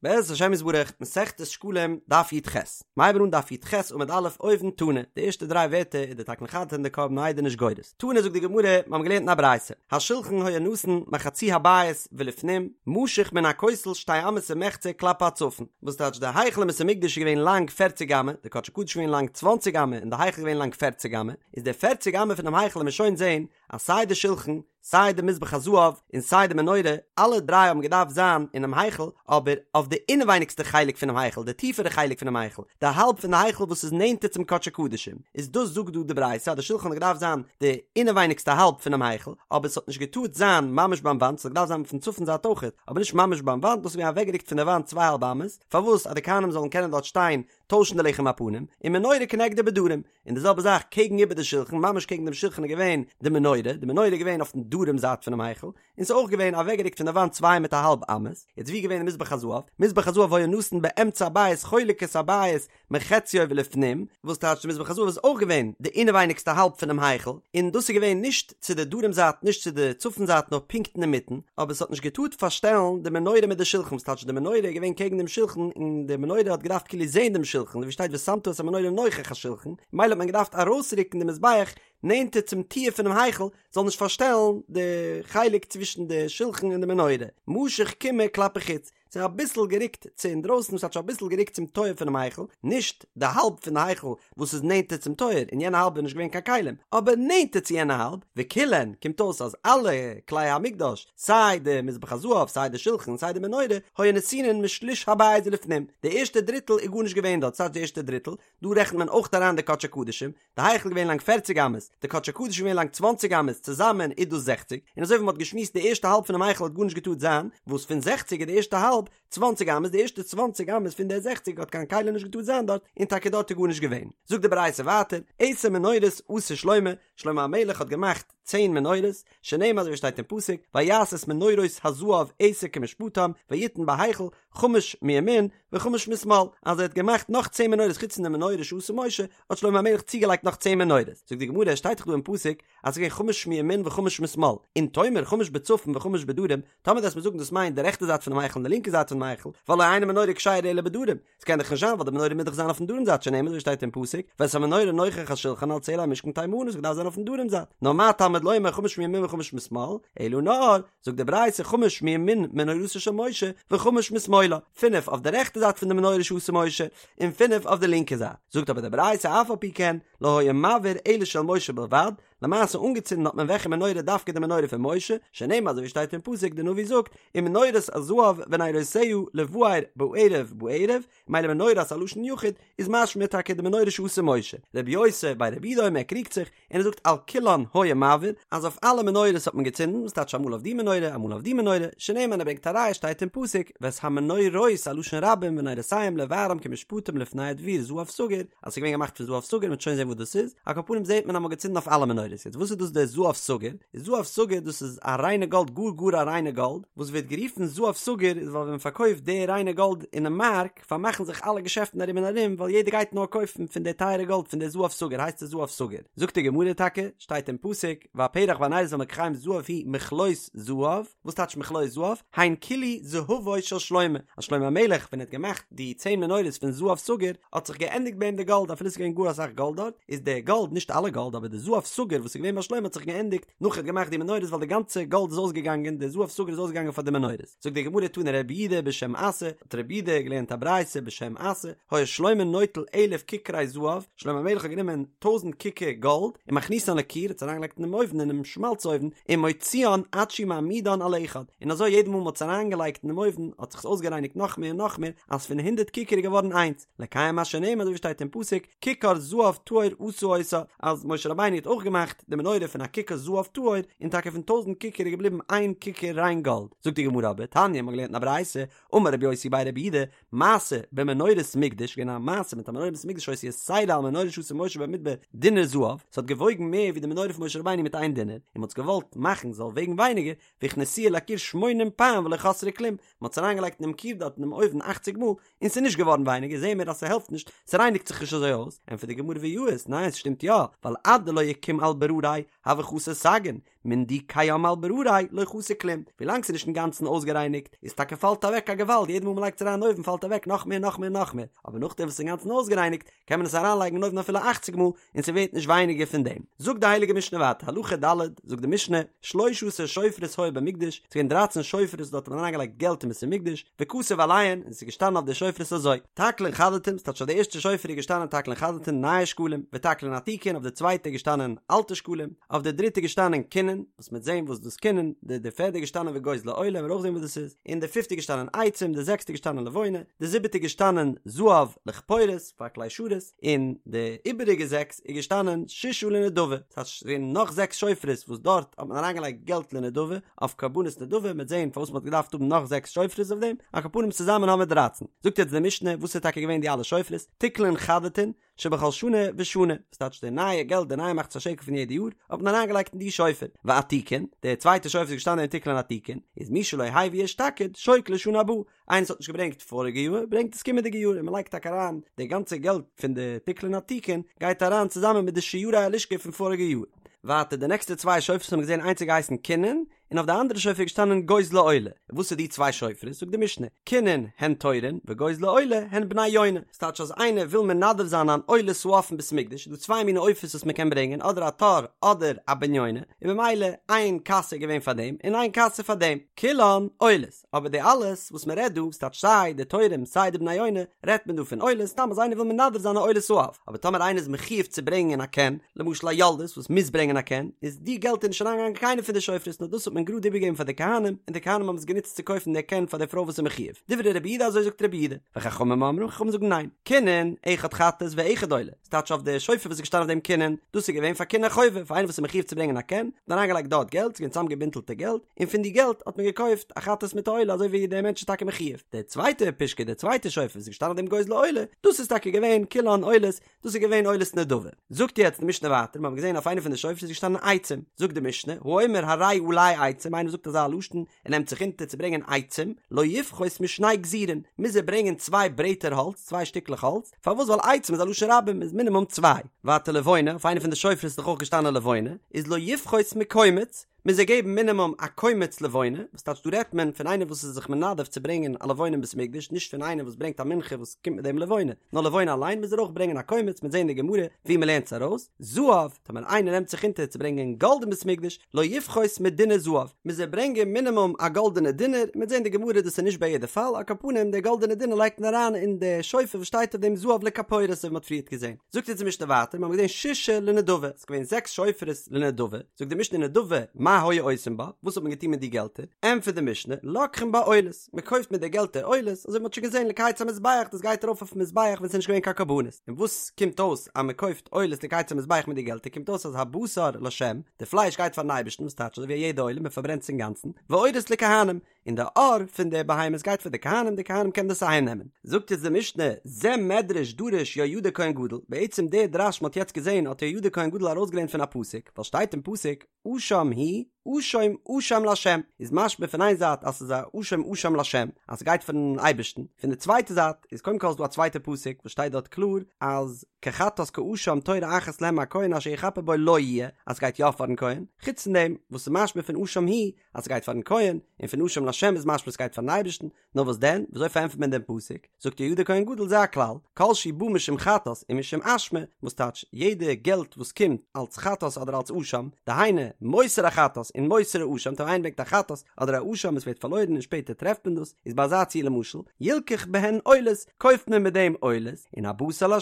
בעזרת השם יתברך, מסכת שקלים, דף י"ח. מ'הייבן אן דף י"ח עמוד א' אויבן תנא, די ערשטע דריי ווערטער איז די תקנה חדתין און די קרבן העדה נישט גורס. תנא זאגט די גמרא, מיר האבן געלערנט אין א ברייתא, השולחן היה נתון מחצי הבית ולפנים, משוך מן הכותל שתי אמות ומחצה כלפי הצפון. וואס טייטש די היכל אין בית המקדש איז געווען לאנג פערציג אמה, די קדשי קדשים איז געווען לאנג צוואנציג אמה און די היכל איז געווען לאנג פערציג אמה, איז די פערציג אמה פונעם היכל וועלן מיר שוין זען אז סיי די שולחן, סיי די מזבח הזהב און סיי די מנורה, אלע דריי האבן געדארפט זיין אינעם היכל, אבער אויף די אינעווייניגסטע חלק פונעם היכל, די טיפערע חלק פונעם היכל, די האלב פון די היכל וואס איז נענטער צום קדשי קדשים, איז דאס זאגט דא די ברייתא אז די שולחן האט געדארפט זיין די אינעווייניגסטע האלב פונעם היכל, אבער עס האט נישט געטארט זיין ממש ביים וואנט, עס האט געדארפט זיין פון צפון זייט אויכעט, אבער נישט ממש ביים וואנט, דאס איז געווען אוועקגערוקט פון די וואנט צוויי האלב אמות, פארוואס אז די כהנים זאלן קענען דארט שטיין טוישן די לחם הפנים, ומנורה כנגדו בדרום, און די זעלבע זאך קעגן איבער די שולחן, ממש קעגן דעם שולחן איז געווען די מנורה, די מנורה איז געווען אויפן דרום זייט פונעם היכל, און ס'איז אויך געווען אוועקגערוקט פון די וואנט צוויי מיט א האלב אמות, יעצט ווי איז געווען די מזבח הזהב? מזבח הזהב היה נתון באמצע הבית חולק את הבית מחציו ולפנים, וואס טייטש די מזבח הזהב איז אויך געווען די אינעווייניגסטע האלב פונעם היכל, און דאס איז געווען נישט צו די דרום זייט נישט צו די צפון זייט נאר פונקט אינמיטן, אבער עס האט נישט געטארט פארשטעלן די מנורה מיט די שולחן, וואס טייטש די מנורה איז געווען קעגן דעם שולחן און די מנורה האט געדארפט כאילו זען דעם שולחן, ווי שטייט ושמת את המנורה נוכח השולחן, ממילא האט מען געדארפט ארויסרוקן די מזבח נענטער צום טיר פונעם היכל זאל נישט פארשטעלן די חלק צווישן די שולחן און די מנורה, משוך קימעא כלפי חוץ, ס'איז אביסל גערוקט צו אינדרויסן, וואס טייטש אביסל גערוקט צום טויער פונעם היכל, נישט די האלב פון די היכל וואס איז נענטער צום טויער, אין יענע האלב איז נישט געווען קיין כלים, אבער נענטער צו יענע האלב, וכולן, קומט אויס אז אלע כלי המקדש, סיי די מזבח הזהב, סיי די שלחן, סיי די מנורה, היו נתונין משליש הבית ולפנים, די ערשטע דריטל איז גארנישט געווען דארט, ס'טייטש די ערשטע דריטל, דא רעכנט מען אויך אריין די קדשי קדשים, די היכל איז געווען לאנג פערציג אמות, די קדשי קדשים איז געווען לאנג צוואנציג אמות, צוזאמען איז דאס זעכציג, און אזוי ווי מען האט געשמועסט די ערשטע האלב פונעם היכל האט גארנישט געטארט זיין, וואס פון זעכציג איז די ערשטע האלב צוואנציג אמות, די ערשטע צוואנציג אמות פון די זעכציג האט קיין כלי נישט געטארט זיין דארט, און טאקע דארט איז גארנישט געווען. זאגט די ברייתא ווייטער, עשר מנורות עשה שלמה, שלמה המלך האט געמאכט צען מנורות, שנאמר אזוי ווי שטייט אין פסוק, ויעש את מנורות הזהב עשר כמשפטם, ויתן בהיכל, חמש מימין וחמש משמאל, אז ער האט געמאכט נאך צען מנורות חוץ פון די מנורה שעשה משה, האט שלמה המלך צוגעלייגט נאך צען מנורות. זאגט די גמרא, עס שטייט דאך דא אין פסוק אז עס איז געווען חמש מימין וחמש משמאל, אם תאמר חמש בצפון וחמש בדרום, טאמער דו וועסט מיר זאגן דאס מיינט די רעכטע זייט פונעם היכל און די לינקע זייט פונעם היכל, והלא אין המנורה כשרה אלא בדרום, עס קען דאך נישט זיין ווייל די מנורה מוז דאך זיין אויפן דרום זייט שנאמר אזוי ווי שטייט אין פסוק ואת המנורה נוכח השולחן על צלע המשכן תימנה עס דארף זיין אויפן דרום זייט נאר מה תלמוד לומר חמש מימין וחמש משמאל אלא נאר זאגט די ברייתא חמש מימין מנורתו של משה וחמש משמאלה פינף אויף די רעכטע זייט פון די מנורה שעשה משה און פינף אויף די לינקע זייט זאגט אבער די ברייתא אף על פי כן לא היה מבעיר אלא של משה בלבד למעשה אנגעצינדן האט מען וועלכע מנורה דווקא די מנורה פון משה, שנאמר אזוי ווי שטייט אין פסוק די נביא זאגט ומנורת הזהב ונרותיה לבער בערב בערב, ממילא מנורת א לשון יחיד איז משמע טאקע די מנורה שעשה משה, רבי יוסי בי רבי יהודה אומר ער קריגט זיך און ער זאגט על כולן היה מבעיר אז אויף אלע מנורות האט מען געצינדן וואס טייטש אמאל אויף די מנורה אמאל אויף די מנורה, שנאמר און ער ברענגט א ראיה שטייט אין פסוק ואת המנורות א לשון רבים ונרותיהם לבערם כמשפטם לפני הדביר זהב סגור, אז ס'איז געווען געמאכט פון זהב סגור, מ'וועט שוין זען וואס דאס איז, על כל פנים זעט מען אז מ'האט געצינדן אויף אלע מנורות, יעצט וואס איז דאס דער זהב סגור? איז זהב סגור דאס איז א ריינע גאלד גאר גאר א ריינע גאלד, וואס ווערט גערופן זהב סגור איז ווייל ווען מ'פארקויפט די ריינע גאלד אינעם מארק פארמאכן זיך אלע געשעפטן ארום און ארום ווייל יעדער גייט נאר קויפן פון די טייערע גאלד פון די זהב סגור הייסט עס זהב סגור, זאגט די גמרא טאקע, שטייט אין פסוק, והפרח והנרות והמלקחים זהב הוא מכלות זהב, וואס טייטש מכלות זהב? הן כלו זהבו של שלמה, אז שלמה המלך ווען ער האט געמאכט די צען מנורות פון זהב סגור האט זיך געענדיגט ביי אים די גאלד אפילו עס איז געווען גאר אסאך גאלד דארט, איז די גאלד, נישט אלע גאלד אבער די זהב סגור וואס איז געווען ביי שלמה האט זיך געענדיגט נאך ער האט געמאכט די מנורות ווייל די גאנצע גאלד איז אויסגעגאנגען די זהב סגור איז אויסגעגאנגען פאר די מנורות. זאגט די גמרא תנא רבי יהודה בשם אסי, האט רבי יהודה געלערנט א ברייתא בשם אסי, היה שלמה נוטל אלף ככרי זהב, שלמה המלך האט גענומען טויזנט ככר גאלד, ומכניסן לכור, האט עס אריינגעלייגט אינעם אויוון אינעם שמאלץ אויוון, ומוציאן עד שהוא מעמידן על אחד, און אזוי יעדע מאל מען האט עס אריינגעלייגט אינעם אויוון האט זיך עס אויסגערייניגט נאך מער און נאך מער, אז פון הונדערט ככר איז געווארן איינס, לקיים מה שנאמר אזוי ווי שטייט אין פסוק, ככר זהב טהור עשה אותה, אז משה רבינו האט אויך געמאכט די מנורה פון א ככר זהב טהור, און טאקע פון טויזנט ככר איז געבליבן איין ככר ריין גאלד. זאגט די גמרא אבער, תניא, מ'האט געלערנט אין א ברייתא, אמר רבי יוסי בי רבי יהודה, מעשה במנורת מקדש, געווען א מעשה מיט א מנורת מקדש שהיתה יתירה על מנורה שעשה משה במדבר דינר זהב, ס'האט געוואויגן מער ווי די מנורה פון משה רבינו מיט איין דינר, און מ'האט עס געוואלט מאכן זאל וועגן ווייניגער, והכניסוה לכור שמונים פעם ולא חסרה כלום, מ'האט עס אריינגעלייגט אינעם כור דארט אינעם אויוון אכציג מאל, און ס'איז נישט געווארן ווייניגער, זעהן מיר אז ס'העלפט נישט, ס'רייניגט זיך נישט אזוי אויס, ענטפערט די גמרא ויאות, ניין ס'שטימט יא, ווייל עד דלא יקום על. ברריה הוי חסר סגין, מן דקיים על ברריה לא חסר כלום, ווילאנג ס'איז נישט אינגאנצן אויסגערייניגט איז טאקע פאלט אוועק א געוואלד יעדע מאל מ'לייגט עס אריין אין אויוון פאלט אוועק נאך מער נאך מער נאך מער, אבער נאכדעם וואס ס'איז אינגאנצן אויסגערייניגט קען מען עס אריינלייגן אין אויוון אפילו אכציג מאל און ס'ווערט נישט ווייניגער פון דעם. זאגט די הייליגע משנה ווייטער, הלכה ד', זאגט די משנה, שלשה עשר שופרות היו במקדש, ס'איז געווען דרייצן שופרות דארט האט מען אריינגעלייגט געלט אין בית המקדש, וכתוב עליהן, און ס'איז געשטאנען אויף די שופרות אזוי, תקלין חדתין, ס'טייטש אויף די ערשטע שופר איז געשטאנען תקלין חדתין נייע שקלים, ותקלין עתיקין, אויף די צווייטע איז געשטאנען אלטע שקלים, אויף די דריטע איז געשטאנען קינין, וואס מ'וועט זען וואס דאס קינין, די די פערדע איז געשטאנען וגוזלי עולה, מ'וועט אויך זען וואס דאס איז, און די פיפטע איז געשטאנען עצים, די זעקסטע איז געשטאנען לבונה, די זיבעטע איז געשטאנען זהב לכפורת, פאר כלי שרת, און די איבעריגע זעקס איז געשטאנען ששה לנדבה, ס'הייסט ס'איז געווען נאך זעקס שופרות וואס דארט האט מען אריינגעלייגט געלט לנדבה, אויף קרבנות נדבה, מ'וועט זען פארוואס מ'האט געדארפט האבן נאך זעקס שופרות אויף דעם, על כל פנים צוזאמען האבן מיר דרייצן. זאגט יעצט די משנה וואס איז טאקע געווען די אלע שופרות, תקלין חדתין, שבכל שנה ושנה, וואס טייטש די נייע געלט די נייע מחצית השקל פון יעדע יאר, האט מען אריינגעלייגט אין די שופר, ועתיקין, די צווייטע שופר איז געשטאנען אין תקלין עתיקין, איז מי שלא הביא אשתקד, שוקל לשנה הבאה, איינער וואס האט נישט געברענגט פאריגע יאר, ברענגט עס קומענדיגע יאר, און מען לייגט טאקע אריין די גאנצע געלט פון די תקלין עתיקין, גייט אריין צוזאמען מיט די שיירי הלשכה פון פאריגע יאר. ווייטער די נעקסטע צוויי שופרות האבן מיר געזען איינס האט געהייסן קינין, און אויף די אנדערע שופר איז געשטאנען גוזלי עולה. וואס איז די צוויי שופרות? זאגט די משנה, קינין הן תורין וגוזלי עולה הן בני יונה. ס'טייטש אז איינער וויל מנדב זיין אן עולת העוף אין בית המקדש, איז דא צוויי מיני עופות וואס מ'קען ברענגען, אדער א תור אדער א בן יונה, און במילא איין קאסע איז געווען פאר דעם און איין קאסע פאר דעם. כולן עולות. אבער די אלעס וואס מען רעדט דא, ס'טייטש סיי די תורים סיי די בני יונה, רעדט מען דא פון עולות, סתם אז איינער וויל מנדב זיין א עולת העוף, אבער טאמער איינער איז מחיוב צו ברענגען א קן, למשל א יולדת וואס מוז ברענגען א קן, איז די געלט איז נישט אריינגעגאנגען אין קיינע פון די שופרות נאר דאס האט מען גראד איבערגעגעבן פאר די כהנים, און די כהנים האבן עס גענוצט צו קויפן די קן פאר די פרוי וואס איז מחיוב. דברי רבי יהודה אזוי זאגט רבי יהודה, וחכמים אומרים, חכמים זאגן ניין, קינין, אחד חטאת ואחד עולה. ס'טייטש אויף די שופר וואס איז געשטאנען אויף דעם קינין, דאס איז געווען פאר קיני חובה, פאר איינער וואס איז מחיוב צו ברענגען א קן, האט מען אריינגעלייגט דארט געלט, ס'איז געווען צוזאמגעבינדלטע געלט, און פון די געלט האט מען געקויפט א חטאת מיט א עולה אזוי ווי דער מענטש איז טאקע מחיוב. די צווייטע פושקע, די צווייטע שופר וואס איז געשטאנען אויף דעם גוזלי עולה, דאס איז טאקע געווען כולן עולות, דאס איז געווען עולת נדבה. זאגט יעצט די משנה ווייטער, מיר האבן געזען אויף איינע פון די שופרות איז געשטאנען עצים, זאגט די משנה, האומר הרי עלי עצים, איינער זאגט אזא לשון, ער נעמט זיך אונטער צו ברענגען עצים, לא יפחות משני גזירין, מוז ער ברענגען צוויי ברעטער האלץ, צוויי שטיקלעך האלץ, פארוואס ווייל עצים איז א לשון רבים איז מינימום צוויי, ווייטער לבונה, אויף איינע פון די שופרות איז דאך אויך געשטאנען לבונה, איז לא יפחות מקומץ, מוז ער געבן מינימום א קומץ לבונה, וואס טייטש דא רעדט מען פון איינער וואס איז זיך מנדב צו ברענגען א לבונה אין בית המקדש, נישט פון איינער וואס ברענגט א מנחה וואס קומט מיט דעם לבונה, נאר לבונה אליין מוז ער אויך ברענגען א קומץ, מ'וועט זען אין די גמרא ווי מ'לערנט עס ארויס, זהב, טאמער איינער נעמט זיך אונטער צו ברענגען גאלד אין בית המקדש, לא יפחות מדינר זהב, מוז ער ברענגען מינימום א גאלדענע דינר, מ'וועט זען די גמרא דאס איז נישט ביי יעדע פאל, על כל פנים די גאלדענע דינר לייגט מען אריין אין די שופר וואס שטייט אויף דעם זהב לכפורת אזוי ווי מ'האט פריערט געזען. זאגט אונז די משנה ווייטער, מיר האבן געזען ששה לנדבה, ס'איז געווען זעקס שופרות לנדבה, זאגט די משנה נדבה מה היו עושים בה, וואס האט מען געטון מיט די געלטער, ענטפערט די משנה, לוקחין בה עולות, מען קויפט מיט די געלטער עולות, אזוי ווי מ'האט שוין געזען לקיץ המזבח, דאס גייט ארויף אויפן מזבח ווען ס'איז נישט געווען קיין קרבנות, און וואס קומט אויס אז מען קויפט עולות לקיץ המזבח מיט די געלטער קומט אויס אז הבשר לשם, די פלייש גייט פארן אייבערשטן וואס טייטש אזוי ווי א יעדע עולה מען פארברענט עס אינגאנצן, ועורות לכהנים, און די עור פון די בהמות גייט פאר די כהנים, די כהנים קענען דאס אהיים נעמען. זאגט יעצט די משנה, זה מדרש דרש יהוידע כהן גדול, בעצם די דרש מ'האט יעצט געזען האט יהוידע כהן גדול ארויסגעלערנט פון א פסוק, ווייל שטייט אין פסוק, אשם הוא, אשם אשם לה', איז משמע פון איין זייט אז ס'איז א אשם אשם לה', אז ס'גייט פארן אייבערשטן, פון די צווייטע זייט איז קודם כל איז דא א צווייטע פסוק וואס שטייט דארט קלאר אז כחטאת כאשם תורה אחת להם מהכהן אשר יכפר בו לו יהיה, אז ס'גייט יא פארן כהן, חוץ פון דעם וואס איז משמע פון אשם הוא אז ס'גייט פארן כהן, און פון אשם לה' איז משמע ס'גייט פארן אייבערשטן, נאר וואס דען, וויאזוי פארענטפערט מען דעם פסוק? זאגט יהוידע כהן גדול זה הכלל, כל שהוא בא משום חטאת ומשום אשמה, וואס טייטש, יעדע געלט וואס קומט אלץ חטאת אדער אלץ אשם, דהיינו, מותר החטאת און מותר האשם, טאמער איינער ברענגט א חטאת אדער א אשם עס ווערט פארלוירן און שפעטער טרעפט מען דאס, איז ביי אזא ציור למשל, ילקח בהן עולות, קויפט מען מיט דעם עולות, און הבשר לה'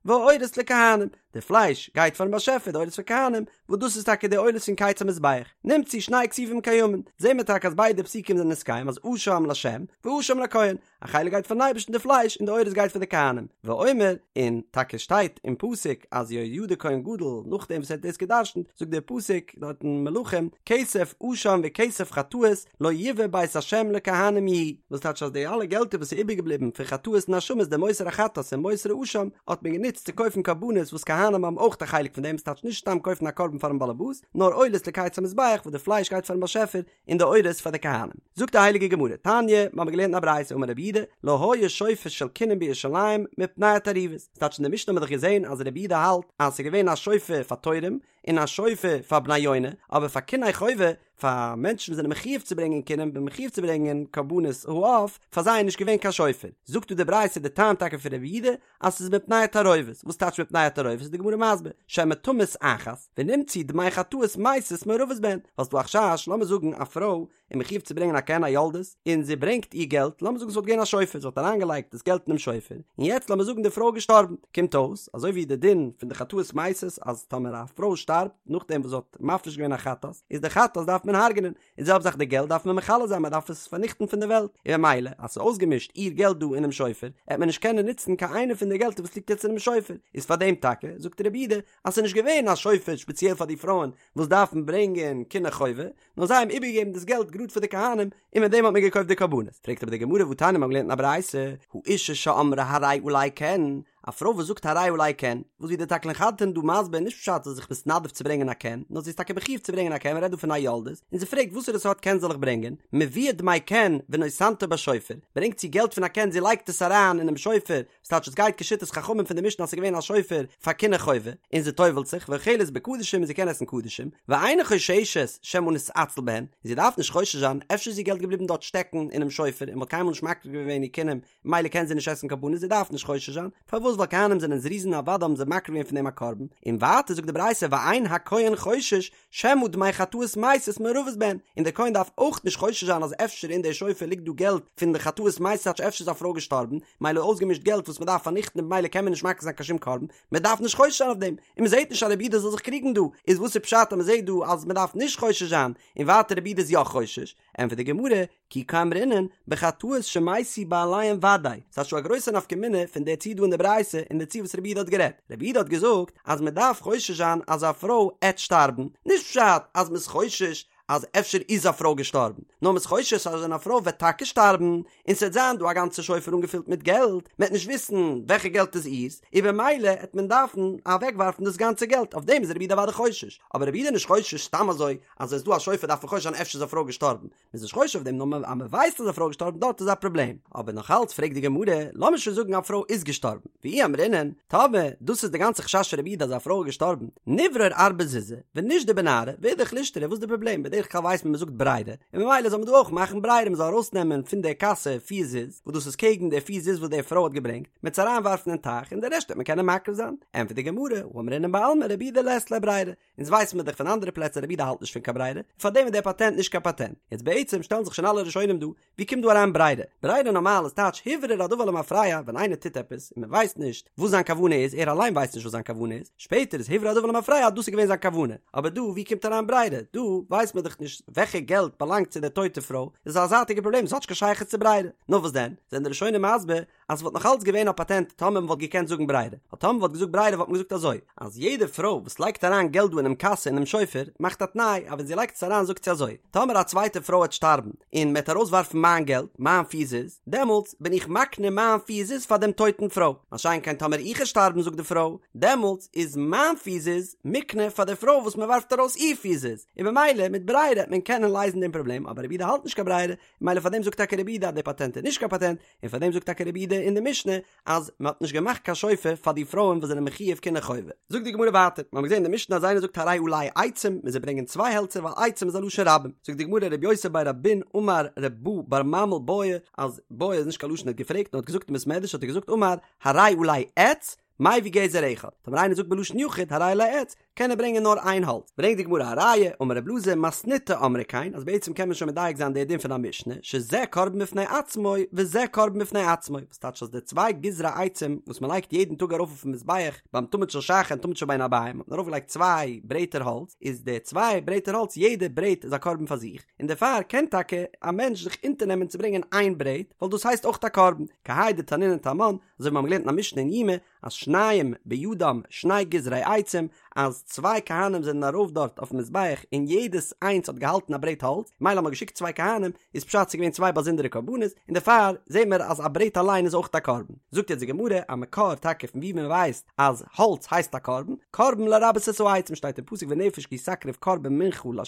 והעורות לכהנים, די פלייש גייט פארן באשעפער, די עורות פאר כהנים, וואס דאס איז טאקע די עולות פון קיץ המזבח, נמצאו שני כתובים קיימין, זעהן מיר טאקע אז ביידע פסוקים זענען נתקיים אז אשם לשם ואשם לכהן, א חלק גייט פארן אייבערשטן די פלייש און די עורות גייט פאר די כהנים, ואומר, און טאקע שטייט אין פסוק אז יהוידע כהן גדול נאכדעם וואס ער האט דאס גע'דרש'נט זאגט דער פסוק דארט אין מלכים כסף אשם וכסף חטאות לא יבא בית השם לכהנים יהיו, וואס טייטש אז די אלע געלטער וואס איז איבערגעבליבן פון חטאות און אשמות די מותר החטאת און מותר האשם האט מען גענוצט צו קויפן קרבנות וואס כהנים האבן אויך א חלק פון דעם, ס'טייטש נישט סתם קויפן א קרבן פארן באלעבאס, נאר עולות לקיץ המזבח וואס די פלייש גייט פארן באשעפער און די עורות פאר די כהנים. זאגט די הייליגע גמרא, תניא, מיר האבן געלערנט אין א ברייתא אמר רבי יהודה, לא היה שופר של קינין בירושלים מפני התערובת, ס'טייטש אין די משנה האבן מיר דאך געזען אז רבי יהודה האלט אז ס'איז געווען א שופר פאר תורים, און א שופר פאר בני יונה, אבער פאר קיני חובה, פאר מענטשן וואס זענען מחיוב צו ברענגען קינים און מחיוב צו ברענגען קרבנות העוף, פאר זיי איז נישט געווען קיין שופר. זאגט דא די ברייתא די טעם טאקע פון רבי יהודה, אז ס'איז מפני התערובת, וואס טייטש מפני התערובת איז די גמרא מסביר, שמא תמות אחת, ונמצאו דמי חטאות מתות מעורבות בהן, ווייל ס'דא א חשש, לאמיר זאגן א פרוי איז מחיוב צו ברענגען א קן א יולדת, און זי ברענגט איר געלט, לאמיר זאגן ס'וואלט געווען א שופר, זי וואלט אריינגעלייגט דאס געלט אינעם שופר, און יעצט לאמיר זאגן די פרוי איז געשטארבן, קומט אויס, אזוי ווי די דין פון די חטאות מתות, אז טאמער א פרוי שטארבט נאכדעם וואס זי האט מפריש געווען א חטאת, איז די חטאת דארף מען הרג'נען, און די זעלבע זאך די געלט דארף מען מכלה זיין, מען דארף עס פארניכטן פון די וועלט, און ממילא אז ס'איז אויסגעמישט איר געלט דא אינעם שופר, עט מען נישט קענען נוצן קיין איינע פון די געלטער וואס ליגט יעצט אינעם שופר, איז פאר דעם טאקע, זאגט רבי יהודה, אז ס'איז נישט געווען א שופר שפעציעל פאר די פרויען וואס דארפן ברענגען קיני חובה, נאר זיי האבן איבערגעגעבן דאס געלט גראד פאר די כהנים, און מיט דעם האט מען געקויפט די קרבנות. פרעגט אבער די גמרא והתניא מ'האט געלערנט אין א ברייתא, האשה שאמרה הרי עלי קן, א פרוי וואס זאגט הרי עלי קן, וואס ווי דער תקלין חדתין דא מסביר נישט פשט זי איז זיך מתנדב צו ברענגען א קן, נאר זי איז טאקע מחיוב צו ברענגען א קן, מ'רעדט דא פון א יולדת, און זי פרעגט וואסערע סארט קן זאל איך ברענגען, מביאה דמי קן ונותנתו בשופר, ברענגט זי געלט פון א קן זי לייגט עס אריין אינעם שופר, ס'טייטש עס גייט כשיטת חכמים פון די משנה אז ס'איז געווען א שופר פאר קיני חובה, און זי טובל'ט זיך, ואוכלת בקדשים און זי קען עסן קדשים, ואינה חוששת שמא נתעצל בהן, און זי דארף נישט חושש זיין, אפשר איז איר געלט געבליבן דארט שטעקן אינעם שופר און מ'האט קיינמאל נישט מקריב געווען איר קינים, ממילא קען זי נישט עסן קרבנות, זי דארף נישט חושש זיין, פארוואס ווייל כהנים זענען זריזין אוודאי האבן זיי מקריב געווען פון דעם א קרבן, און ווייטער זאגט די ברייתא ואין הכהן חושש שמא דמי חטאות מתות מעורבות בהן, און דער כהן דארף אויך נישט חושש זיין אז אפשר אין די שופר ליגט דא געלט פון די חטאות מתות טייטש אפשר איז א פרוי געשטארבן, מילא אויסגעמישט געלט וואס מען דארף פארניכטן און במילא קען מען נישט מקריב זיין קיין שום קרבן, מען דארף נישט חושש זיין אויף דעם, און מען זעט נישט אז רבי יהודה זאל זיך קריגן דא, איז וואס איז פשט אז מען זעט דא אז מען דארף נישט חושש זיין, און ווייטער רבי יהודה איז יא חושש? ענטפערט די גמרא, כי קאמרינן, בחטאות שמתו בעליהן ודאי, ס'איז שוין א גרויסע נפקא מינה פון די ציור דא אין די ברייתא און די ציור וואס רבי יהודה האט גערעדט. רבי יהודה האט געזאגט אז מען דארף חושש זיין אז א פרוי עט שטארבן, נישט פשט אז מ'איז חושש אז אפשר איז א פרוי געשטארבן, נאר מ'איז חושש אז ווען א פרוי וועט טאקע שטארבן און ס'וועט זיין דא א גאנצע שופר אנגעפילט מיט געלט, מ'עט נישט וויסן וועלכע געלט איז איר'ס, און במילא עט מען דארפן אוועקווארפן דאס גאנצע געלט, אויף דעם איז רבי יהודה אוודאי חושש, אבער רבי יהודה איז נישט חושש סתם אזוי אז עס איז דא א שופר דארף מען חושש זיין אפשר איז א פרוי געשטארבן, מ'איז נישט חושש אויף דעם נאר אז מ'ווייסט אז א פרוי איז געשטארבן דארט איז א פראבלעם. אבער נאך אלץ פרעגט די גמרא, לאמיר שוין זאגן א פרוי איז געשטארבן, ואי אמרינן, טאמער דאס איז די גאנצע חשש פון רבי יהודה אז א פרוי איז געשטארבן, נברור ארבעה זוזי, ונישדי בנהרא, ואידך לישתרי, וואס איז די פראבלעם? בדרך כלל ווייסט מען מ'זאגט ברירה, און ממילא זאל מען דא אויך מאכן ברירה מ'זאל ארויסנעמען פון די קאסע פיר זוז, וואס דאס איז קעגן די פיר זוז וואס די פרוי האט געברענגט, מ'עט עס אריינווארפן אין טייך און די רעשט וועט מען קענען מקריב זיין. ענטפערט די גמרא, הא אמרינן בעלמא רבי יהודה לית ליה ברירה, אונז ווייסן מיר דאך פון אנדערע פלעצער רבי יהודה האלט נישט פון קיין ברירה, און פארדעם איז דער פאטענט נישט קיין פאטענט. יעצט בעצם שטעלן זיך שוין אלע ראשונים דא, ווי קומט דא אריין ברירה? ברירה נארמאל איז טייטש הוברר הדבר למפרע, ווען איינער טוט עפעס און מען ווייסט נישט וואס זיין כוונה איז, ער אליין ווייסט נישט וואס זיין כוונה איז, שפעטער איז הוברר הדבר למפרע אז דאס איז געווען זיין כוונה. אבער דא ווי קומט אריין ברירה? דא ווייסט מען דאך נישט וועלכע געלט באלאנגט צו דער טויטע פרוי, איז א זייטיגע פראבלעם, עס האט נישט קיין שייכות צו ברירה. נאר וואס דען? זענען די ראשונים מסביר אז ס'וואלט נאך אלץ געווען א פאטענט טאמער מ'וואלט געקענט זאגן ברירה, ווייל טאמער מ'וואלט געזאגט ברירה וואלט מען געזאגט אזוי, אז יעדע פרוי וואס לייגט אריין געלט דא אינעם קאסע אינעם שופר, מאכט א תנאי אז ווען זי לייגט עס אריין זאגט זי אזוי, טאמער א צווייטע פרוי וועט שטארבן און מ'וועט ארויסווארפן מיין געלט, מיין פיר זוז, דעמאלטס בין איך מקנה מיין פיר זוז פאר דעם טויטן פרוי, מה שאין כן טאמער איך וועל שטארבן זאגט די פרוי, דעמאלטס איז מיין פיר זוז מוקנה פאר די פרוי וואס מ'ווארפט ארויס איר פיר זוז, און במילא מיט ברירה וועט מען קענען לייזן דעם פראבלעם, אבער רבי יהודה האלט נישט קיין ברירה, ממילא פאר דעם זאגט טאקע רבי יהודה אז דער פאטענט איז נישט קיין פאטענט, און פאר דעם זאגט טאקע רבי יהודה אין די משנה אז מען האט נישט געמאכט קיין שופר פאר די פרויען וואס זענען מחיוב קיני חובה. זאגט די גמרא ווייטער, מיר האבן געזען אין די משנה אז איינער זאגט הרי עלי עצים, מוז ער ברענגען צוויי העלצער ווייל עצים איז א לשון רבים. זאגט די גמרא רבי יוסי בי רבין אמר רב בא בר ממל בעי, אז בעי איז נישט קיין לשון ער האט געפרעגט נאר האט געזאגט אין בית מדרש האט ער געזאגט אמר הרי עלי עץ, מביא גזר אחד, טאמער איינער זאגט בלשון יחיד הרי עלי עץ, קען ער ברענגען נאר איין האלץ. ברענגט די גמרא א ראיה, אמר רב אלעזר מתניתא אמרי כן, אז בעצם קען מען שוין מדייק זיין די דין פון א משנה, שזה קרבן בפני עצמו וזה קרבן בפני עצמו, וואס טייטש אז די צוויי גזרי עצים וואס מען לייגט יעדן טאג ארויף אויפן מזבח ביים תמיד של שחר און תמיד של בין הערבים האט מען ארויף געלייגט צוויי ברעטער האלץ, איז די צוויי ברעטער האלץ יעדע ברעט איז א קרבן פאר זיך, און דערפאר קען טאקע א מענטש זיך אונטערנעמען צו ברענגען איין ברעט, ווייל דאס הייסט אויך א קרבן, כהאי דתנינן תמן, אזוי ווי מיר האבן געלערנט אין א משנה אין יומא אז שניים בידם שני גזרי עצים, אז צוויי כהנים זענען ארויף דארט אויפן מזבח און יעדעס איינס האט געהאלטן א ברעט האלץ, מילא האט מען געשיקט צוויי כהנים, איז פשט ס'איז געווען צוויי באזונדערע קרבנות, און דערפאר זעהן מיר אז א ברעט אליין איז אויך א קרבן. זאגט יעצט די גמרא א מקור טאקע פון וואו מען ווייסט אז האלץ הייסט א קרבן, קרבן לרבות את העצים שטייט אין פסוק ונפש כי תקריב קרבן מנחה לה',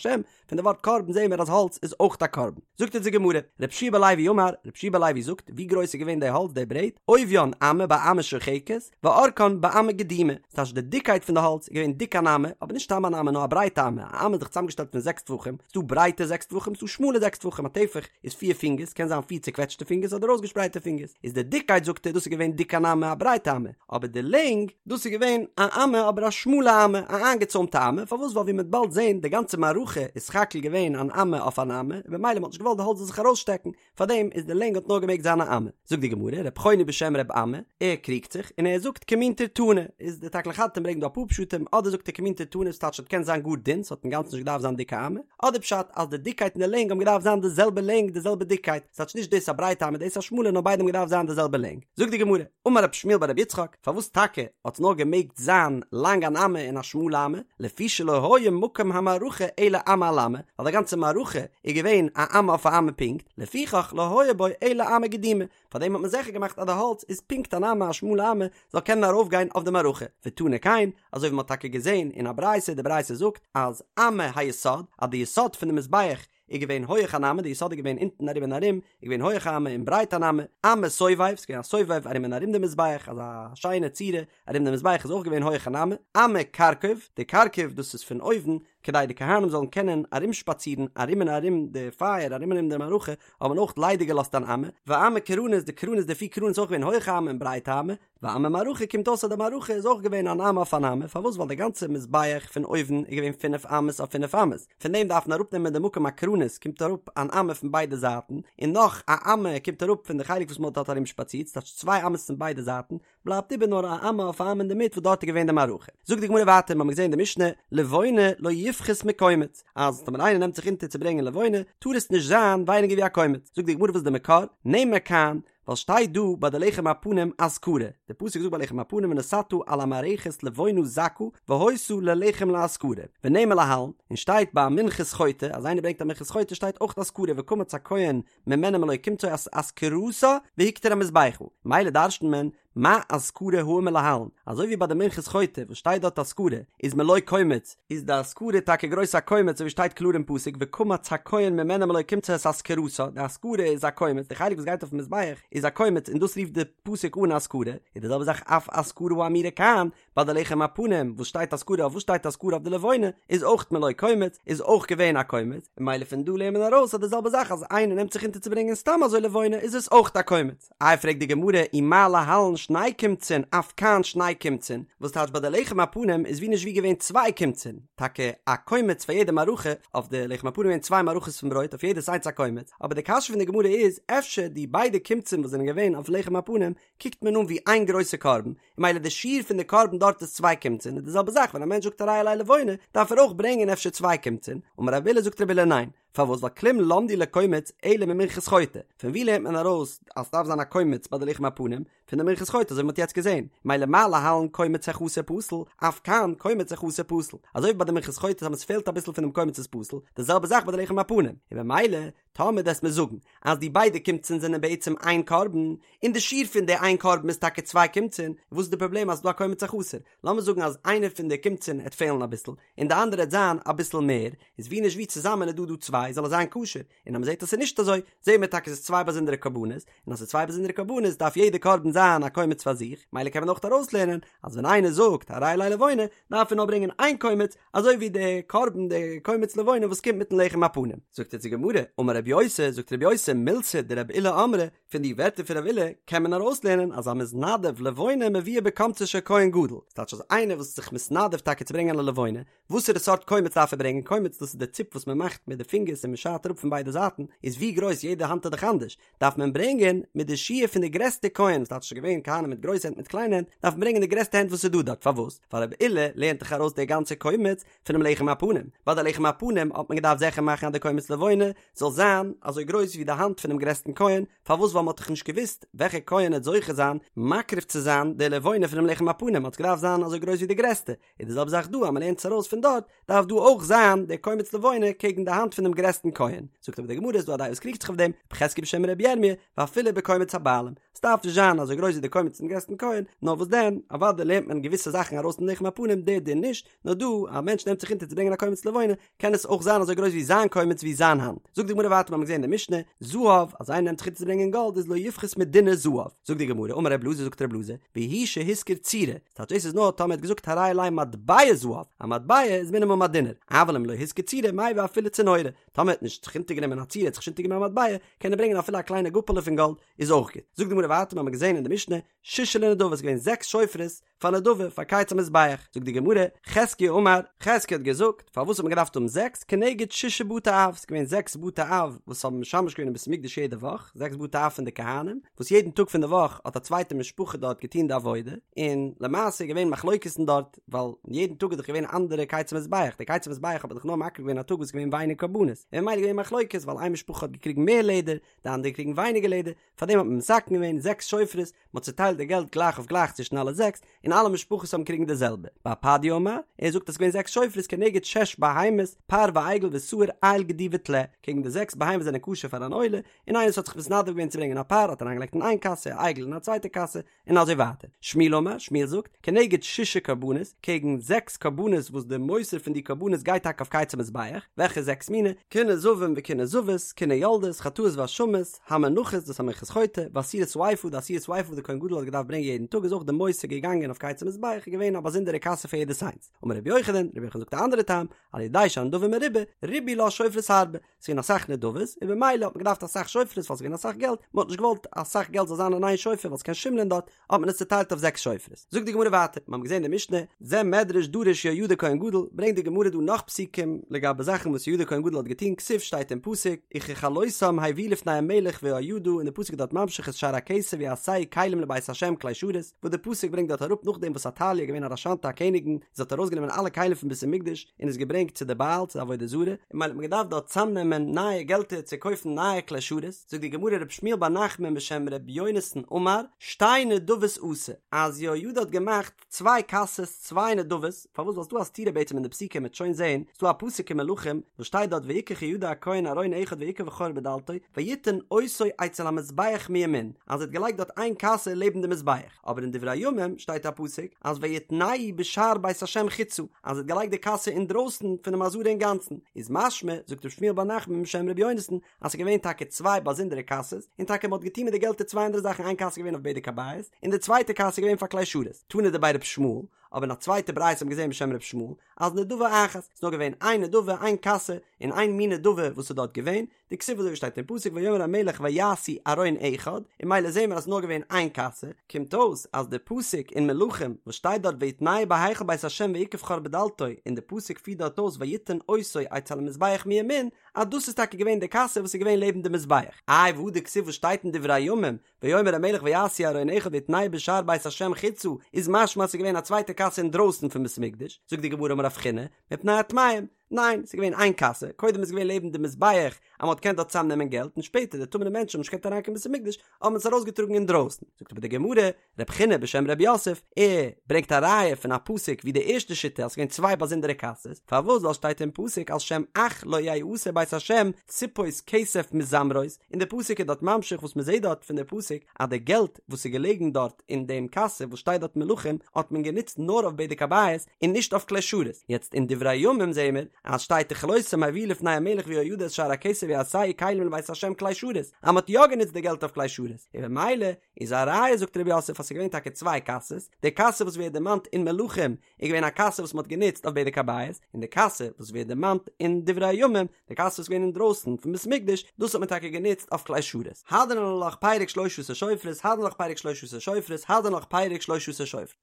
פון די ווארט קרבן זעהן מיר אז האלץ איז אויך א קרבן. זאגט אונז די גמרא, רבי יהושע בן לוי אמר, רבי יהושע בן לוי זאגט, ווי גרויס איז געווען די האלץ די ברעט, עוביין אמה באמה שוחקת, ואורכן באמה גדומה, ס'טייטש די דיקקייט פון די האלץ איז געווען דיק. דיק אן אמה, אבער נישט סתם אן אמה נאר א ברייטע אמה, א אמה איז דאך צוזאמגעשטעלט פון זעקס טפחים, ס'דא ברייטע זעקס טפחים ס'דא שמאלע זעקס טפחים, א טפח איז פיר פינגערס, קען זיין פיר צוקוועטשטע פינגערס אדער אויסגעשפרייטע פינגערס, איז די דיקקייט זאגט ער דאס איז געווען דיק אן אמה א ברייטע אמה, אבער די לענג, דאס איז געווען א אמה אבער א שמאלע אמה, א איינגעצוימטע אמה, פארוואס ווייל ווי מ'וועט באלד זען די גאנצע מערכה איז סך הכל געווען אן אמה אויף אן אמה, און במילא מ'האט נישט געוואלט די האלץ זאל זיך ארויסשטעקן, פארדעם איז די לענג האט נאר געמעגט זיין א אמה. זאגט די גמרא, רב חוני בשם רב אמי, ער קריגט זיך, און ער זאגט כמין טירטוני, איז די תקלין חדתין ברענגט דא אפאר פשטים, אדער זאגט ער כמין טירטוני ס'טייטש ס'האט געקענט זיין גאר דין, ס'האט אינגאנצן נישט געדארפט זיין דיק א אמה, אדער פשט אז די דיקקייט און די לענג האבן געדארפט זיין די זעלבע לענג די זעלבע דיקקייט, ס'טייטש נישט דאס א ברייטע אמה דאס א שמאלע נאר ביידע האבן געדארפט זיין די זעלבע לענג. זאגט די גמרא, אמר רב שמואל בר רב יצחק, פארוואס טאקע האט נאר געמעגט זיין לאנג אן אמה און א שמאלע אמה, לפי שלא היה מקום המערכה אלא אמה על אמה, ווייל די גאנצע מערכה איז געווען א אמה אויף א אמה פונקט, לפיכך לא היה בו אלא אמה גדומה, פארדעם האט מען זיכער געמאכט אז די האלץ איז פונקט אן אמה א שמאלע אמה זאל קענען ארויפגיין אויף די מערכה, ותנא כן, אזוי ווי מען האט טאקע געזען אין א ברייתא, די ברייתא זאגט אז אמה היסוד, אז די יסוד פון די מזבח איז געווען הויעך אן אמה, די יסוד איז געווען אונטן ארום און ארום, איז געווען הויעך א אמה און ברייט אן אמה, אמה סובב, ס'איז געווען א סובב ארום און ארום די מזבח, אזא שיינע צורה ארום די מזבח איז אויך געווען הויעך אן אמה, אמה כרכוב, די כרכוב דאס איז פון אויבן, כדי די כהנים זאלן קענען ארומשפאצירן ארום און ארום די פייער, ארום און ארום די מערכה, האט מען אויך ליידיג געלאזט אן אמה, ואמה קרנות, די קרנות די פיר קרנות איז אויך געווען הויעך א אמה און ברייט א אמה, ואמה מערכה קומט אויס אז די מערכה איז אויך געווען אן אמה אויף אן אמה, פארוואס ווייל די גאנצע מזבח פון אויבן איז געווען פינף אמות אויף פינף אמות, פון דעם דארף מען אראפנעמען די מקום הקרנות קומט אראפ אן אמה פון ביידע זייטן, און נאך א אמה קומט אראפ פון די חלק וואס מען האט דארט ארום שפאצירט, ס'טייטש צוויי אמות פון ביידע זייטן, בלייבט איבער נאר א אמה אויף א אמה אינדערמיט וואס דארט איז געווען די מערכה. זאגט די גמרא ווייטער, מ'האמיר געזען אין די משנה, לבונה לא יפחות מקומץ, אז טאמער איינער נעמט זיך אונטער צו ברענגען לבונה, טאר עס נישט זיין ווייניגער ווי א קומץ, זאגט די גמרא וואס איז די מקור, נאמר כאן, ווייל שטייט דא ביי די לחם הפנים אזכרה, די פסוק זאגט ביי לחם הפנים ונתתה על המערכת לבונה זכה והיתה ללחם לאזכרה, ונאמר להלן, און שטייט ביי מנחת חוטא, אז איינער ברענגט א מנחת חוטא שטייט אויך אזכרה וקמץ הכהן ממנה מלא קומצו את אזכרתה והקטיר המזבחה, מילא דרש'נט מען מה אזכרה האמור להלן, אזוי ווי ביי די מנחת חוטא וואס שטייט דארט אזכרה איז מלא קומץ, איז די אזכרה טאקע גרויס א קומץ אזוי ווי שטייט קלאר אין פסוק וקמץ הכהן ממנה מלא קומצו את אזכרתה, די אזכרה איז א קומץ, די חלק וואס גייט אויפן מזבח איז א קומץ און דאס רופט די פסוק אן אזכרה, איז די זעלבע זאך אף אזכרה האמורה כאן, ביי די לחם הפנים וואס שטייט אזכרה אויף וואס שטייט אזכרה אויף די לבונה איז אויך מלא קומץ איז אויך געווען א קומץ, און מילא פון דא לערנט מען ארויס אז די זעלבע זאך אז איינער נעמט זיך אונטער צו ברענגען סתם אזוי לבונה איז עס אויך א קומץ. איי פרעגט די גמרא ומה להלן שני קומצין אף כאן שני קומצין, וואס טייטש ביי די לחם הפנים איז ווי נישט ווי געווען צוויי קומצין, טאקע א קומץ פאר יעדע מערכה, אויף די לחם הפנים געווען צוויי מערכות פון ברויט אויף יעדעס איינס א קומץ, אבער די קשיא פון די גמרא איז אפשר די ביידע קומצין וואס זענען געווען אויף לחם הפנים קוקט מען אן ווי איין גרויסע קרבן, און מילא די שיעור פון די קרבן דארט איז צוויי קומצין, און די זעלבע זאך ווען א מענטש זאגט הרי עלי לבונה דארף ער אויך ברענגען אפשר צוויי קומצין, אמר רב אילא זאגט רב אילא ניין, פארוואס ווייל כלום למדו לקומץ אלא ממנחת חוטא, פון ווי לערנט מען ארויס אז ס'דארף זיין א קומץ ביי די לחם הפנים? פון די מנחת חוטא אזוי ווי מ'האט יעצט געזען, מילא מה להלן קומץ החסר פסול, אף כאן קומץ החסר פסול, אזוי ווי ביי די מנחת חוטא אז ס'פעלט אביסל פונעם קומץ איז פסול, די זעלבע זאך ביי די לחם הפנים, און במילא טאמער דו'סט מיר זאגן אז די ביידע קומצין זענען בעצם איין קרבן, און די שיעור פון די איין קרבן איז טאקע צוויי קומצין, וואס איז די פראבלעם אז ס'דא א קומץ החסר? לאמיר זאגן אז איינער פון די קומצין העט פעלן אביסל, און די אנדערע העט זיין אביסל מער, איז ווי נישט ווי צוזאמען איז דא דא צוויי זאל עס זיין כשר, און אז מ'זעט אז ס'איז נישט אזוי, זעהן מיר טאקע ס'איז צוויי באזונדערע קרבנות, און אז ס'איז צוויי באזונדערע קרבנות דארף יעדע קרבן זיין א קומץ פאר זיך, מילא קען מען אויך ארויסלערנען אז ווען איינער זאגט הרי עלי לבונה דארף ער נאר ברענגען איין קומץ, אזוי ווי די קרבן די קומץ לבונה וואס קומט מיטן לחם הפנים. זאגט אונז די גמרא, אמר רבי יוסי, זאגט רבי יוסי, מילתא דרבי אילא אמרי, פון די ווערטער פון רבי אילא קען מען ארויסלערנען אז המתנדב לבונה מביאה בקומצו של כהן גדול, ס'טייטש אז איינער וואס איז זיך מתנדב טאקע צו ברענגען א לבונה, וואסערע סארט קומץ דארף ער ברענגען, קומץ דאס איז די ציפ וואס מען מאכט מיט די פינגערס און מען שארט אראפ פון ביידע זייטן, איז ווי גרויס יעדע האנט איז דאך אנדערש, דארף מען ברענגען מיט די שיעור פון די גרעסטע כהן, ס'טייטש ס'איז געווען כהנים מיט גרויסע הענט מיט קליינע הענט, דארף מען ברענגען די גרעסטע הענט וואס איז דא דארט, פארוואס? ווייל רבי אילא לערנט דאך ארויס די גאנצע קומץ פונעם לחם הפנים, ביי די לחם הפנים האט מען געדארפט זיכער מאכן אז די קומץ לבונה זאל זיין אזוי גרויס ווי די האנט פונעם גרעסטן כהן, פארוואס ווייל מען האט דאך נישט געוואוסט וועלכע כהן העט זוכה זיין מקריב צו זיין די לבונה פונעם לחם הפנים האט עס געדארפט זיין אזוי גרויס ווי די גרעסטע, איז די זעלבע זאך דא אז מען לערנט עס ארויס פון דארט דארף דא אויך זיין דער קומץ לבונה קעגן די האנט פונעם גרעסטן כהן, זאגט אבער די גמרא איז דא א דעה וואס קריגט זיך אויף דעם, רב חזקיה בשם רבי ירמי', ואפילו בקומץ הבעלים, עס דארף נישט זיין אזוי גרויס ווי די קומץ פונעם גרעסטן כהן, נאר וואס דען, אוודאי לערנט מען געוויסע זאכן ארויס פון לחם הפנים, דער דין נישט, נאר דא, א מענטש נעמט זיך אונטער צו ברענגען א קומץ לבונה, קען עס אויך זיין אזוי גרויס ווי זיין קומץ ווי זיין האנט. זאגט די גמרא ווייטער. ווייטער מיר האבן געזען אין די משנה, זהב, אז איינער נעמט זיך אונטער צו ברענגען גאלד איז לא יפחות מדינר זהב, זאגט די גמרא, אמר רב אלעזר זאגט רב אלעזר, והוא שהשכיר צורה, ס'טייטש דאס איז נאר טאמער ער האט געזאגט הרי עלי מטבע זהב, א מטבע איז מינימום א דינר, אבל אם לא השכיר צורה מביא אפילו צנורה, טאמער ער האט נישט זיך אונטערגענומען א צורה, ער האט זיך נישט אונטערגענומען א מטבע, קען ער ברענגען אפילו א קליינע גאפעלע פון גאלד, איז אויך גוט. זאגט די גמרא ווייטער, מיר האבן געזען אין די משנה, ששה לנדבה, ס'איז געווען זעקס שופרות, פאר נדבה, פאר קיץ המזבח, זאגט די גמרא, חזקיה אמר, חזקיה האט געזאגט, פארוואס האט מען געדארפט האבן זעקס, כנגד ששה בתי אב, ס'איז געווען זעקס בתי אב וואס האבן משמש געווען אין בית המקדש יעדע וואך, זעקס בתי אב פון די כהנים, וואס יעדן טאג פון די וואך האט א צווייטע משפחה דארט געטון די עבודה, און למעשה איז געווען מחלוקת'ן דארט, ווייל יעדן טאג איז דאך געווען אנדערע קיץ המזבח, די קיץ המזבח האט מען דאך נאר מקריב געווען א טאג וואס איז געווען ווייניג קרבנות, און ממילא איז געווען מחלוקת, ווייל איין משפחה האט געקריגן מער לעדער, די אנדערע קריגן ווייניגער לעדער, פארדעם האט מען מתקן געווען זעקס שופרות, מען האט צוטיילט די געלט גלייך אויף גלייך צווישן אלע זעקס, און אלע משפחות האבן קריגן די זעלבע. בר פדיה אמר, ער זאגט אז ס'איז געווען זעקס שופרות כנגד שש בהמות, פר ועגל ושעיר איל גדי וטלה, קעגן די זעקס בהמות זענען כשר פאר אן עולה, און איינער וואס האט זיך מתנדב געווען צו ברענגען א פר האט אריינגעלייגט אין איין קאסע, א עגל אין א צווייטע קאסע, און אזוי ווייטער. שמואל אמר, שמואל זאגט, כנגד ששה קרבנות, קעגן זעקס קרבנות וואס די מותר פון די קרבנות גייט טאקע אויף קיץ המזבח, וועלכע זעקס מיני? קיני זבים וקיני זבות, קיני יולדות, חטאות ואשמות, המנחות, דאס א מנחת חוטא, ועשירית האיפה, די עשירית האיפה וואס די כהן גדול האט געדארפט ברענגען יעדן טאג איז אויך די מותר געגאנגען אויף קיץ המזבח איז געווען א באזונדערע קאסע פאר יעדעס איינס. אמר רבי יוחנן, רבי יוחנן זאגט א אנדערע טעם, על ידי שהנדבה מרובה, ריבו לה שופרות הרבה, ס'געווען אסאך נדבות, און במילא האט מען געדארפט אסאך שופרות ווייל ס'געווען אסאך געלט, מ'האט נישט געוואלט אסאך געלט זאל זיין אין איין שופר ווייל ס'קען שימלען דארט, האט מען עס צוטיילט אויף זעקס שופרות. זאגט די גמרא ווייטער, מ'האבן געזען די משנה, זה מדרש דרש יהוידע כהן גדול, ברענגט די גמרא דא נאך פסוקים לגבי זאכן וואס יהוידע כהן גדול האט געטון, כתיב שטייט אין פסוק, וככלותם הביאו לפני המלך ויהוידע, און די פסוק איז דארט ממשיך את שאר הכסף ויעשהו כלים לבית השם כלי שרת, וואס די פסוק ברענגט דארט אראפ נאכדעם וואס עתליה איז געווען א רשענטע א קעניגן, זי האט ארויסגענומען אלע כלים פון בית המקדש און עס געברענגט צו די בעל צו די עבודה זרה, און ממילא האט מען געדארפט דארט צאמנעמען נייע געלטער צו קויפן נייע כלי שרת, זאגט די גמרא ר' שמואל בר נחמן בשם ר' יונתן אמר, שתי נדבות עשה, אז יהוידע האט געמאכט צוויי קאסעס צוויי נדבות, פארוואס ווייל ס'דא א סתירה בעצם אין די פסוקים מ'עט שוין זעהן, ס'דא א פסוק אין מלכים וואס שטייט דארט ויקח יהוידע הכהן ארון אחד ויקב חור בדלתו ויתן אותו אצל המזבח מימין, אז ער האט געלייגט דארט איין קאסע לעבן די מזבח. אבער אין דברי הימים שטייט א פסוק אז ויתנהו בשער בית השם חוצה אז ער האט געלייגט די קאסע אינדרויסן פונעם עזרה אינגאנצן, איז משמע, זאגט ר' שמואל בר נחמן בשם ר' יונתן, אז ס'איז געווען טאקע צוויי באזונדערע קאסעס, און טאקע מ'האט געטון מיט די געלטער צוויי אנדערע זאכן איין קאסע איז געווען אויף בדק הבית, און די צווייטע קאסע איז געווען פאר כלי שרת, תנא דבי ר' ישמעאל, אבער אין א צווייטע ברייתא האט מען געזען בשם ר' ישמעאל, אז נדבה אחת, ס'איז נאר געווען איין נדבה איין קאסע, און איין מין נדבה וואס איז דארט געווען, דכתיב אזוי ווי שטייט אין פסוק ויאמר המלך ויעשו ארון אחד, און ממילא זעהן מיר אז ס'איז נאר געווען איין קאסע, קומט אויס אז די פסוק אין מלכים וואס שטייט דארט ויתנהו בהיכל בית השם ויקב חור בדלתו און די פסוק פירט דארט אויס ויתן אותו אצל המזבח מימין אז דאס איז טאקע געווען די קאסע וואס איז געווען לעבן די מזבח, איי והא דכתיב וואס שטייט אין דברי הימים ויאמר המלך ויעשו ארון אחד ויתנהו בשער בית השם חוצה איז משמע אז ס'איז געווען א צווייטע קאסע אינדרויסן פון בית המקדש, זאגט די גמרא אמר רב חיננא, מפני הטמאים, ניין, ס'איז געווען איין קאסע, קודם איז געווען לעבן די מזבח אז מ'האט געקענט דארט צוזאם נעמען געלט און שפעטער די טמא'נע מענטשן האבן נישט געקענט אריינקומען בית המקדש האט מען עס ארויסגעטראגן אינדרויסן, זאגט אבער די גמרא, רב חיננא בשם רב יוסף, ער ברענגט א ראיה פון א פסוק ווי די ערשטע שיטה אז ס'איז געווען צוויי באזונדערע קאסעס, פארוואס ווייל שטייט אין פסוק על שם אח לא יעשה בית השם סיפות כסף מזמרות, און די פסוק איז דארט ממשיך וואס מ'זעט דארט פון די פסוק אז די געלט וואס איז געלעגן דארט אין דעם קאסע וואס שטייט דארט מלכים האט מען גענוצט נאר אויף בדק הבית און נישט אויף כלי שרת, יעצט אין דברי הימים זעהן מיר אז שטייט וככלותם הביאו לפני המלך ויהוידע את שאר הכסף ויעשהו כלים לבית השם כלי שרת אז מען האט יא גענוצט די געלט אויף כלי שרת, און במילא איז א ראיה זאגט רב יוסף אז ס'איז געווען טאקע צוויי קאסעס, די קאסע וואס ווערט דערמאנט אין מלכים איז געווען א קאסע וואס מען האט גענוצט אויף בדק הבית, און די קאסע וואס ווערט דערמאנט אין דברי הימים, די קאסע וואס איז געווען אינדרויסן פון בית המקדש, דאס האט מען טאקע גענוצט אויף כלי שרת. הדרן עלך פרק שלשה עשר שופרות, הדרן עלך פרק שלשה עשר שופרות, הדרן עלך פרק שלשה עשר שופרות.